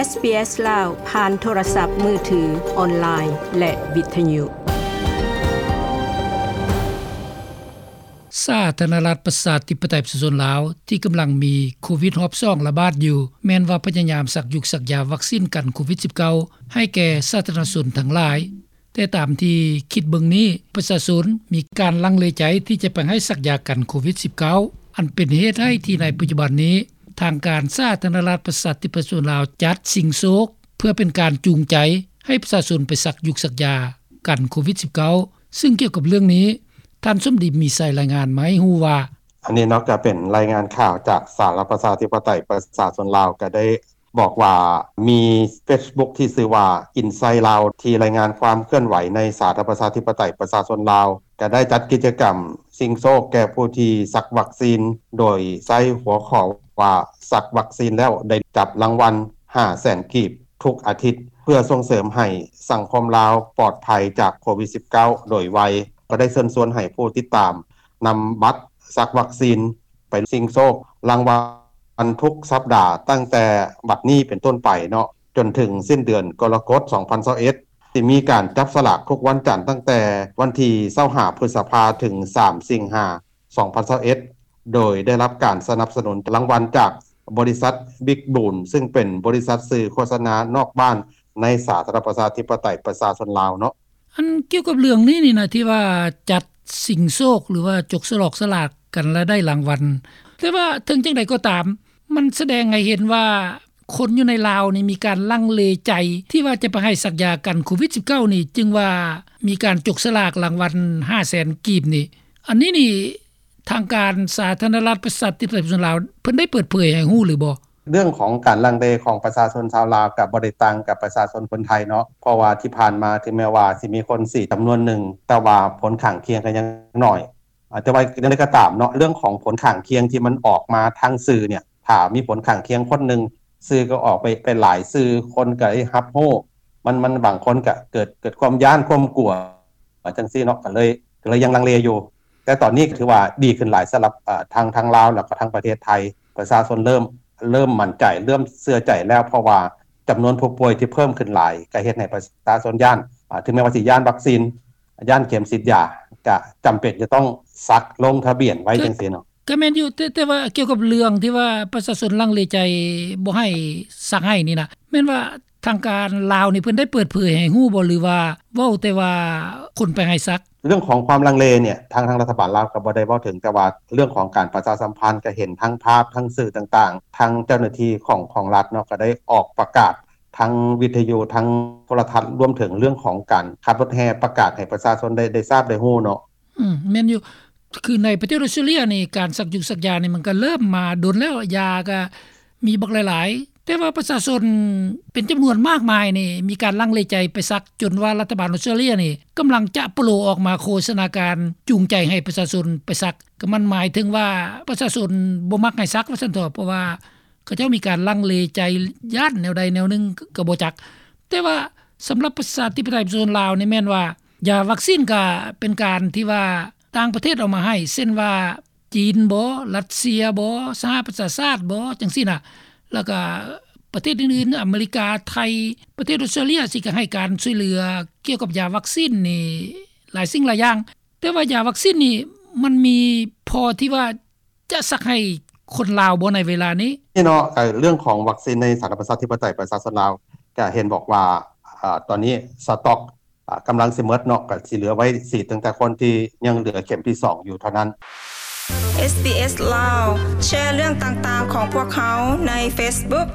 ເອສ ບີ ເອສ ລາວ ຜ່ານໂທລະສັບມືຖື, ອອນລາຍ ແລະ ວິທະຍຸ. ສາທາລະນະລັດ ປະຊາທິປະໄຕ ປະຊາຊົນລາວ ທີ່ກຳລັງມີໂຄວິດຮອບສອງລະບາດຢູ່ ແມ່ນວ່າພະຍາຍາມສັກຢູກສັກຢາວັກຊີນກັນໂຄວິດສິບເກົ້າ ໃຫ້ແກ່ສາທາລະນະຊົນທັງຫຼາຍ. ແຕ່ຕາມທີ່ຄິດເບິ່ງນີ້, ປະຊາຊົນມີການລັງເລໃຈທີ່ຈະໄປໃຫ້ສັກຢາກັນໂຄວິດສິບເກົ້າ ອັນເປັນເຫດໃຫ້ທີ່ໃນປັດຈຸບັນນີ້ ທາງການສາທາລະນະລັດ ປະຊາທິປະໄຕ ປະຊາຊົນລາວ ຈັດຊິງໂຊກ ເພື່ອເປັນການຈູງໃຈໃຫ້ປະຊາຊົນໄປສັກຢູກສັກຢາກັນໂຄວິດສິບເກົ້າ. ຊຶ່ງກ່ຽວກັບເລື່ອງນີ້, ທ່ານ ສົມດີ ມີໄຊ ລາຍງານມາໃຫ້ຮູ້ວ່າ: ອັນນີ້ເນາະ ກໍເປັນລາຍງານຂ່າວຈາກສາທາລະນະລັດ ປະຊາທິປະໄຕ ປະຊາຊົນລາວ ກໍໄດ້ ບອກວ່າມີເຟສບຸກທີ່ຊື່ວ່າ ອິນໄຊລາວ ທີ່ລາຍງານຄວາມເຄື່ອນໄຫວໃນສາທາລະນະລັດ ປະຊາທິປະໄຕ ປະຊາຊົນລາວ ກໍໄດ້ຈັດກິດຈະກຳຊິງໂຊກແກ່ຜູ້ທີ່ສັກວັກຊີນ ໂດຍໃຊ້ຫົວຂໍ້ວ່າ ສັກວັກຊີນແລ້ວໄດ້ຈັບລາງວັນຫ້າແສນກີບທຸກອາທິດ ເພື່ອສົ່ງເສີມໃຫ້ສັງຄົມລາວປອດໄພຈາກໂຄວິດສິບເກົ້າໂດຍໄວ. ກໍໄດ້ເຊີນຊວນໃຫ້ຜູ້ຕິດຕາມນຳບັດສັກວັກຊີນ ໄປຊິງໂຊກລາງວັນທຸກສັບດາ ຕັ້ງແຕ່ບັດນີ້ເປັນຕົ້ນໄປເນາະ ຈົນເຖິງສິ້ນເດືອນກໍລະກົດ ສອງພັນຊາວເອັດ ທີ່ມີການຈັບສະຫຼາກທຸກວັນຈັນ ຕັ້ງແຕ່ວັນທີຊາວຫ້າ ພຶດສະພາ ເຖິງ ສາມ ສິງຫາ ສອງພັນຊາວເອັດ ໂດຍໄດ້ຮັບການສະໜັບສະໜູນລາງວັນຈາກບໍລິສັດ ບິກບູນ ຊຶ່ງເປັນບໍລິສັດສື່ໂຄສະນານອກບ້ານໃນສາທາລະນະລັດ ປະຊາທິປະໄຕ ປະຊາຊົນລາວເນາະ. ອັນກ່ຽວກັບເລື່ອງນີ້ນີ້ນະ ທີ່ວ່າຈັດຊິງໂຊກ ຫຼືວ່າຈົກສະຫຼອກສະຫຼາກກັນລະໄດ້ລາງວັນ, ແຕ່ວ່າເຖິງຈັ່ງໃດກໍຕາມ ມັນສະແດງໃຫ້ເຫັນວ່າຄົນຢູ່ໃນລາວນີ້ມີການລັງເລໃຈ ທີ່ວ່າຈະໄປໃຫ້ສັກຢາກັນໂຄວິດສິບເກົ້ານີ້ ຈຶ່ງວ່າມີການຈົກສະຫຼາກລາງວັນຫ້າແສນກີບນີ້. ອັນນີ້ນີ້ ທາງການສາທາລະນະລັດ ປະຊາທິປະໄຕ ປະຊາຊົນລາວ ເພິ່ນໄດ້ເປີດເຜີຍໃຫ້ຮູ້ຫຼືບໍ່? ເລື່ອງຂອງການລັງເລຂອງປະຊາຊົນຊາວລາວ ກໍບໍ່ໄດ້ຕ່າງກັບປະຊາຊົນຄົນໄທເນາະ ເພາະວ່າທີ່ຜ່ານມາ ເຖິງແມ່ນວ່າຊິມີຄົນສີດຈຳນວນໜຶ່ງ ແຕ່ວ່າຜົນຂ້າງຄຽງກໍຍັງໜ້ອຍ. ອາ ແຕ່ວ່າຢ່າງໃດກໍຕາມເນາະ ເລື່ອງຂອງຜົນຂ້າງຄຽງທີ່ມັນອອກມາທາງສື່ເນ່ຍ ຖ້າມີຜົນຂ້າງຄຽງຄົນໜຶ່ງ ສື່ກໍອອກໄປ ໄປຫຼາຍສື່ ຄົນກໍໄດ້ຮັບຮູ້ ມັນ ມັນ ບາງຄົນກໍເກີດ ເກີດຄວາມຢ້ານຄວາມກົວຈັ່ງຊີ້ເນາະ ກໍເລີຍ ກໍເລີຍຍັງລັງເລຢູ່. ແຕ່ຕອນນີ້ກໍຖືວ່າດີຂຶ້ນຫຼາຍສຳລັບ ເອີ ທາງ ທາງລາວ ແລ້ວກໍທາງປະເທດໄທ ປະຊາຊົນເລີ່ມ ເລີ່ມໝັ້ນໃຈ ເລີ່ມເຊື່ອໃຈແລ້ວ ເພາະວ່າຈຳນວນຜູ້ປ່ວຍທີ່ເພີ່ມຂຶ້ນຫຼາຍ ກໍເຮັດໃຫ້ປະຊາຊົນຢ້ານ ອາ ເຖິງແມ່ນວ່າຊິຢ້ານວັກຊີນ ຢ້ານເຂັມສີດຢາ ກະຈຳເປັນຈະຕ້ອງສັກລົງທະບຽນໄວ້ ຈັ່ງຊີ້ເນາະ. ກະແມ່ນຢູ່ ແຕ່ ແຕ່ວ່າກ່ຽວກັບເລື່ອງທີ່ວ່າປະຊາຊົນລັງເລໃຈບໍ່ໃຫ້ສັກໃຫ້ນີ້ນະ ແມ່ນວ່າທາງການລາວນີ້ເພິ່ນໄດ້ເປີດເຜີຍໃຫ້ຮູ້ບໍ່ ຫຼືວ່າເວົ້າແຕ່ວ່າຄົນໄປໃຫ້ສັກ? ເລື່ອງຂອງຄວາມລັງເລເນ່ຍ ທາງ ທາງລັດຖະບານລາວກໍບໍ່ໄດ້ເວົ້າເຖິງ, ແຕ່ວ່າເລື່ອງຂອງການປະຊາສຳພັນ ກໍເຫັນທາງພາບ ທາງສື່ຕ່າງໆ ທາງເຈົ້າໜ້າທີ່ຂອງ ຂອງລັດເນາະ ກໍໄດ້ອອກປະກາດ ທາງວິທະຍຸ ທາງໂທລະທັດ ລວມເຖິງເລື່ອງຂອງການຂັບລົດແຫ່ ປະກາດໃຫ້ປະຊາຊົນໄດ້ ໄດ້ຊາບໄດ້ຮູ້ເນາະ. ອືມ ແມ່ນຢູ່ ຄືໃນປະເທດອອສເຕຣເລຍນີ້ ການສັກຢູກສັກຢານີ້ ມັນກໍເລີ່ມມາດົນແລ້ວ ຢາກໍມີບັກຫຼາຍໆ ແຕ່ວ່າປະຊາຊົນເປັນຈຳນວນມາກມາຍນີ້ ມີການລັງເລໃຈໄປສັກ ຈົນວ່າລັດຖະບານອອສເຕຣເລຍນີ້ ກຳລັງຈະໂປລອອກມາໂຄສະນາການຈູງໃຈໃຫ້ປະຊາຊົນໄປສັກ ກໍມັນໝາຍເຖິງວ່າປະຊາຊົນບໍ່ມັກໃຫ້ສັກວ່າຊັ້ນເຖາະ ເພາະວ່າ ເຂົາເຈົ້າມີການລັງເລໃຈ ຢ້ານແນວໃດແນວໜຶ່ງກໍບໍ່ຈັກ. ແຕ່ວ່າສຳລັບປະຊາທິປະໄຕປະຊາຊົນລາວນີ້ ແມ່ນວ່າຢາວັກຊີນກໍເປັນການທີ່ວ່າຕ່າງປະເທດເອົາມາໃຫ້ ເຊັ່ນວ່າຈີນບໍ ລັດເຊຍບໍ ສະຫະປະຊາຊາດບໍ ຈັ່ງຊີ້ນະ ແລ້ວກໍປະເທດອື່ນໆ ອາເມລິກາ ໄທ ປະເທດອອສເຕຣເລຍ ຊິກໍໃຫ້ການຊ່ວຍເຫຼືອກ່ຽວກັບຢາວັກຊີນນີ້ຫຼາຍສິ່ງຫຼາຍຢ່າງ. ແຕ່ວ່າຢາວັກຊີນນີ້ ມັນມີພໍທີ່ວ່າຈະສັກໃຫ້ຄົນລາວບໍ່ໃນເວລານີ້? ນີ້ເນາະ ເອີ ເລື່ອງຂອງວັກຊີນໃນສາທາລະນະລັດປະຊາທິປະໄຕປະຊາຊົນລາວ ກະເຫັນບອກວ່າ ອາ ຕອນນີ້ສະຕັອກ ອາ ກຳລັງຊິໝົດເນາະ ກະຊິເຫຼືອໄວ້ສີດຕັ້ງແຕ່ຄົນທີ່ຍັງເຫຼືອເຂັມທີສອງຢູ່ເທົ່ານັ້ນ. ເອສ ບີ ເອອສ ລາວ ແຊເລື່ອງຕ່າງໆຂອງພວກເຮົາໃນເຟສບຸກ